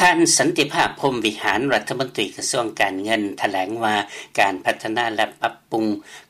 ທ່ານ ສັນຕິພາບ ພົມວິຫານ ລັດຖະມົນຕີກະຊວງການເງິນ ຖະແຫຼງວ່າ ການພັດທະນາ ແລະ ປັບປຸງ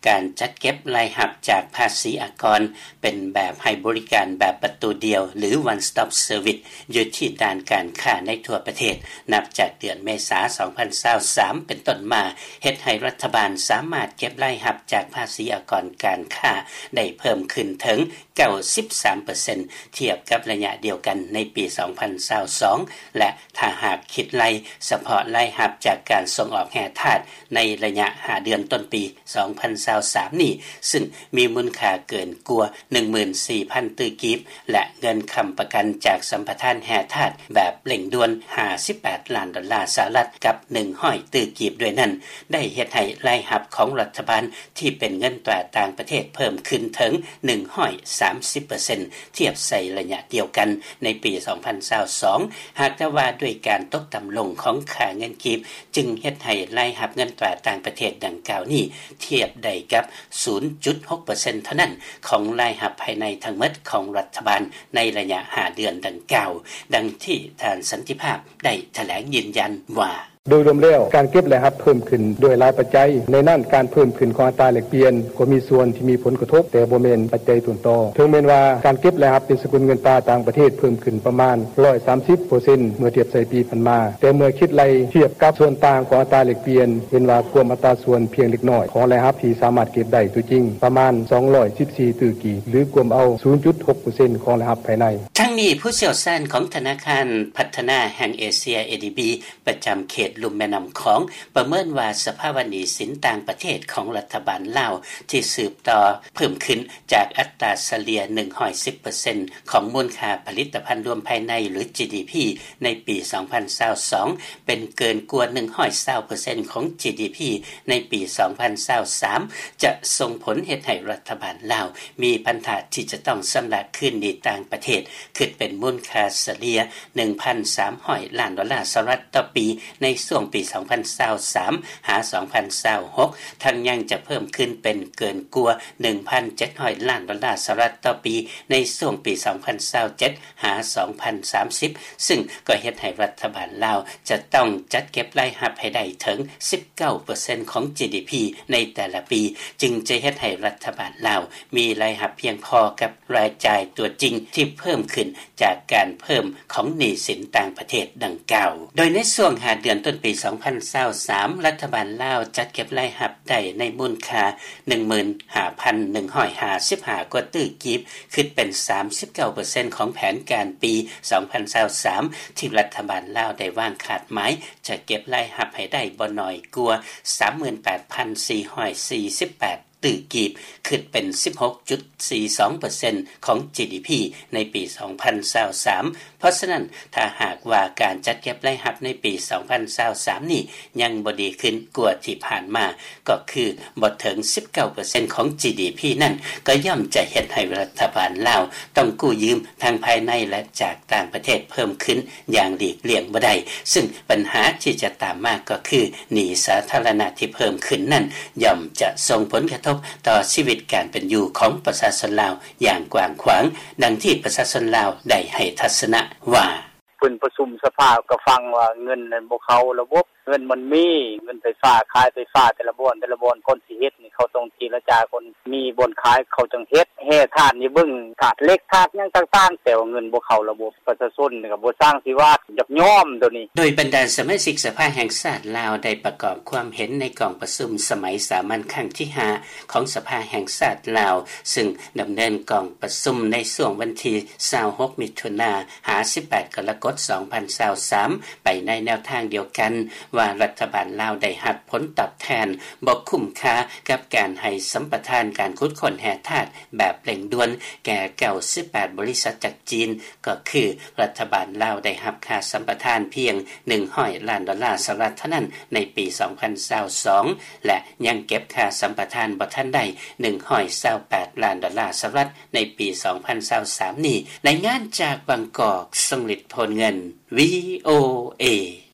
ການຈັດເກັບລາຍຮັບຈາກພາສີອາກອນ ເປັນແບບໃຫ້ບໍລິການແບບປະຕູດຽວ ຫຼື One Stop Service ຢູ່ທີ່ດ້ານການຄ້າໃນທົ່ວປະເທດ ນັບຈາກເດືອນເມສາ ສອງພັນຊາວສາມ ເປັນຕົ້ນມາ ເຮັດໃຫ້ລັດຖະບານສາມາດເກັບລາຍຮັບຈາກພາສີອາກອນການຄ້າໄດ້ເພີ່ມຂຶ້ນເຖິງ ເກົ້າສິບສາມເປີເຊັນ ທຽບກັບໄລຍະດຽວກັນໃນປີ ສອງພັນຊາວສອງ ແລະ ຖ້າຫາກຄິດໄລ່ສະເພາະລາຍຮັບຈາກການສົ່ງອອກແຮ່ທາດໃນໄລຍະຫ້າເດືອນຕົ້ນປີ ສອງພັນຊາວສາມນີ້ ຊຶ່ງມີມູນຄ່າເກີນກວ່າ ໜຶ່ງໝື່ນສີ່ພັນ ຕື້ກີບ ແລະ ເງິນຄ້ຳປະກັນຈາກສຳປະທານແຮ່ທາດແບບເລັ່ງດ່ວນ ຫ້າສິບແປດລ້ານດອນລາສະຫະລັດ ກັບ ໜຶ່ງຮ້ອຍຕື້ກີບດ້ວຍນັ້ນ ໄດ້ເຮັດໃຫ້ລາຍຮັບຂອງລັດຖະບານທີ່ເປັນເງິນຕາຕ່າງປະເທດເພີ່ມຂຶ້ນເຖິງ ໜຶ່ງຮ້ອຍສາມສິບເປີເຊັນ ທຽບໃສ່ໄລຍະດຽວກັນໃນປີ ສອງພັນຊາວສອງ ຫາກແຕ່ວ່າດ້ວຍການຕົກຕ່ຳລົງຂອງຄ່າເງິນກີບ ຈຶ່ງເຮັດໃຫ້ລາຍຮັບເງິນຕາຕ່າງປະເທດດັ່ງກ່າວນີ້ ທຽບໄດ້ກັບ ສູນຈຸດຫົກເປີເຊັນ ເທົ່ານັ້ນ ຂອງລາຍຮັບພາຍໃນທັງໝົດຂອງລັດຖະບານໃນໄລຍະຫ້າເດືອນດັ່ງກ່າວ, ດັ່ງທີ່ທ່ານ ສັນຕິພາບ ໄດ້ຖະແຫຼງຢືນຢັນວ່າ: ໂດຍລວມແລ້ວ, ການເກັບລາຍຮັບເພີ່ມຂຶ້ນດ້ວຍຫຼາຍປັດໄຈ, ໃນນັ້ນການເພີ່ມຂຶ້ນຂອງອັດຕາແລກປ່ຽນກໍມີສ່ວນທີ່ມີຜົນກະທົບ, ແຕ່ບໍ່ແມ່ນປັດໄຈຕົ້ນຕໍ. ເຖິງແມ່ນວ່າການເກັບລາຍຮັບເປັນສະກຸນເງິນຕາຕ່າງປະເທດເພີ່ມຂຶ້ນປະມານ ຮ້ອຍສາມສິບເປີເຊັນ ເມື່ອທຽບໃສ່ປີຜ່ານມາ, ແຕ່ເມື່ອຄິດໄລ່ທຽບກັບສ່ວນຕ່າງຂອງອັດຕາແລກປ່ຽນ, ເຫັນວ່າກວມອັດຕາສ່ວນພຽງເລັກນ້ອຍຂອງລາຍຮັບທີ່ສາມາດເກັບໄດ້ຕົວຈິງ ປະມານ ສອງຮ້ອຍສິບສີ່ຕື້ກີບ ຫຼື ກວມເອົາ ສູນຈຸດຫົກເປີເຊັນ ຂອງລາຍຮັບພາຍໃນ. ທັງນີ້, ຜູ້ຊ່ຽວຊານຂອງທະນາຄານພັດທະນາແຫ່ງເອເຊຍ ເອດີບີ ປະຈຳເຂດລຸ່ມແມ່ນ້ຳຂອງ ປະເມີນວ່າສະພາວະໜີ້ສິນຕ່າງປະເທດຂອງລັດຖະບານລາວ ທີ່ສືບຕໍ່ເພີ່ມຂຶ້ນຈາກອັດຕາສະເລ່ຍ ໜຶ່ງຮ້ອຍສິບເປີເຊັນ ຂອງມູນຄ່າຜະລິດຕະພັນລວມພາຍໃນ ຫຼື ຈີດີພີ ໃນປີ ສອງພັນຊາວສອງ ເປັນເກີນກວ່າ ໜຶ່ງຮ້ອຍຊາວເປີເຊັນ ຂອງ ຈີດີພີ ໃນປີ ສອງພັນຊາວສາມ ຈະສົ່ງຜົນເຮັດໃຫ້ລັດຖະບານລາວມີພັນທະທີ່ຈະຕ້ອງຊຳລະຄືນໜີ້ຕ່າງປະເທດ ຄິດເປັນມູນຄ່າສະເລ່ຍ ໜຶ່ງພັນສາມຮ້ອຍລ້ານດອນລາສະຫະລັດຕໍ່ປີ ໃນຊ່ວງປີ ສອງພັນຊາວສາມ ຫາ ສອງພັນຊາວຫົກ ທັງຍັງຈະເພີ່ມຂຶ້ນເປັນເກີນກວ່າ ໜຶ່ງພັນເຈັດຮ້ອຍລ້ານດອນລາສະຫະລັດຕໍ່ປີ ໃນຊ່ວງປີ ສອງພັນຊາວເຈັດ ຫາ ສອງພັນສາມສິບ ຊຶ່ງກໍເຮັດໃຫ້ລັດຖະບານລາວຈະຕ້ອງຈັດເກັບລາຍຮັບໃຫ້ໄດ້ເຖິງ ສິບເກົ້າເປີເຊັນ ຂອງ ຈີດີພີ ໃນແຕ່ລະປີ ຈຶ່ງຈະເຮັດໃຫ້ລັດຖະບານລາວມີລາຍຮັບພຽງພໍກັບລາຍຈ່າຍຕົວຈິງທີ່ເພີ່ມຂຶ້ນຈາກການເພີ່ມຂອງໜີ້ສິນຕ່າງປະເທດດັ່ງກ່າວ. ໂດຍໃນຊ່ວງຫ້າເດືອນຕົ້ນປີ ສອງພັນຊາວສາມ ລັດຖະບານລາວຈັດເກັບລາຍຮັບໄດ້ໃນມູນຄ່າ ໜຶ່ງໝື່ນຫ້າພັນໜຶ່ງຮ້ອຍຫ້າສິບຫ້າກວ່າຕື້ກີບ ຄິດເປັນ ສາມສິບເກົ້າເປີເຊັນ ຂອງແຜນການປີ ສອງພັນຊາວສາມ ທີ່ລັດຖະບານລາວໄດ້ວາງຄາດໝາຍ ຈະເກັບລາຍຮັບໃຫ້ໄດ້ບໍ່ໜ້ອຍກວ່າ ສາມໝື່ນແປດພັນສີ່ຮ້ອຍສີ່ສິບແປດຕື້ກີບ ຄິດເປັນ ສິບຫົກຈຸດສີ່ສອງເປີເຊັນ ຂອງ ຈີດີພີ ໃນປີ ສອງພັນຊາວສາມ. ເພາະສະນັ້ນ, ຖ້າຫາກວ່າການຈັດເກັບລາຍຮັບໃນປີ ສອງພັນຊາວສາມນີ້ຍັງບໍ່ດີຂຶ້ນກວ່າທີ່ຜ່ານມາ, ກໍຄືບໍ່ເຖິງ ສິບເກົ້າເປີເຊັນ ຂອງ ຈີດີພີ ນັ້ນ, ກໍຍ່ອມຈະເຮັດໃຫ້ລັດຖະບານລາວຕ້ອງກູ້ຢືມທັງພາຍໃນ ແລະ ຈາກຕ່າງປະເທດເພີ່ມຂຶ້ນຢ່າງຫຼີກລ່ຽງບໍ່ໄດ້, ຊຶ່ງບັນຫາທີ່ຈະຕາມມາກໍຄື ໜີ້ສາທາລະນະທີ່ເພີ່ມຂຶ້ນນັ້ນ ຍ່ອມຈະສົ່ງຜົນກະທົບຕໍ່ຊີວິດການເປັນຢູ່ຂອງປະຊາຊົນລາວຢ່າງກວ້າງຂວາງ, ດັ່ງທີ່ປະຊາຊົນລາວໄດ້ໃຫ້ທັດສະນະວ່າ: ເພິ່ນປະຊຸມສະພາກໍຟັງວ່າເງິນນັ້ນບໍ່ເຂົ້າລະບົບ, ເງິນມັນມີ, ເງິນໄຟຟ້າ, ຂາຍໄຟຟ້າແຕ່ລະບ່ອນ, ແຕ່ລະບ່ອນ ກ່ອນຊິເຮັດນີ້ ເຂົາຕ້ອງເຈລະຈາກ່ອນ, ມີບ່ອນຂາຍເຂົາຈັ່ງເຮັດ, ແຮ່ທາດນີ້ເບິ່ງ ທາດເຫຼັກ, ທາດຫຍັງຕ່າງໆ, ແຕ່ວ່າເງິນບໍ່ເຂົ້າລະບົບ, ປະຊາຊົນນີ້ກໍບໍ່ຊ່າງຊິວ່າ ຢາກຍອມໂຕນີ້. ໂດຍບັນດາສະມາຊິກສະພາແຫ່ງຊາດລາວ ໄດ້ປະກອບຄວາມເຫັນໃນກອງປະຊຸມສະໄໝສາມັນຄັ້ງທີຫ້າ ຂອງສະພາແຫ່ງຊາດລາວ, ຊຶ່ງດຳເນີນກອງປະຊຸມໃນຊ່ວງວັນທີ ຊາວຫົກ ມິຖຸນາ ຫາ ສິບແປດ ກໍລະກົດ ສອງພັນຊາວສາມ ໄປໃນແນວທາງດຽວກັນວ່າ ລັດຖະບານລາວໄດ້ຮັບຜົນຕອບແທນບໍ່ຄຸ້ມຄ່າກັບການໃຫ້ສຳປະທານການຂຸດຄົ້ນແຮ່ທາດແບບເລັ່ງດ່ວນແກ່ ເກົ້າສິບແປດ ບໍລິສັດຈາກຈີນ, ກໍຄືລັດຖະບານລາວໄດ້ຮັບຄ່າສຳປະທານພຽງ ໜຶ່ງຮ້ອຍລ້ານດອນລາສະຫະລັດເທົ່ານັ້ນໃນປີ ສອງພັນຊາວສອງ ແລະ ຍັງເກັບຄ່າສຳປະທານບໍ່ທັນໄດ້ ໜຶ່ງຮ້ອຍຊາວແປດລ້ານດອນລາສະຫະລັດ ໃນປີ ສອງພັນຊາວສາມນີ້. ລາຍງານຈາກບາງກອກ, ຊົງລິດ ໂພນເງິນ, ວີໂອເອ.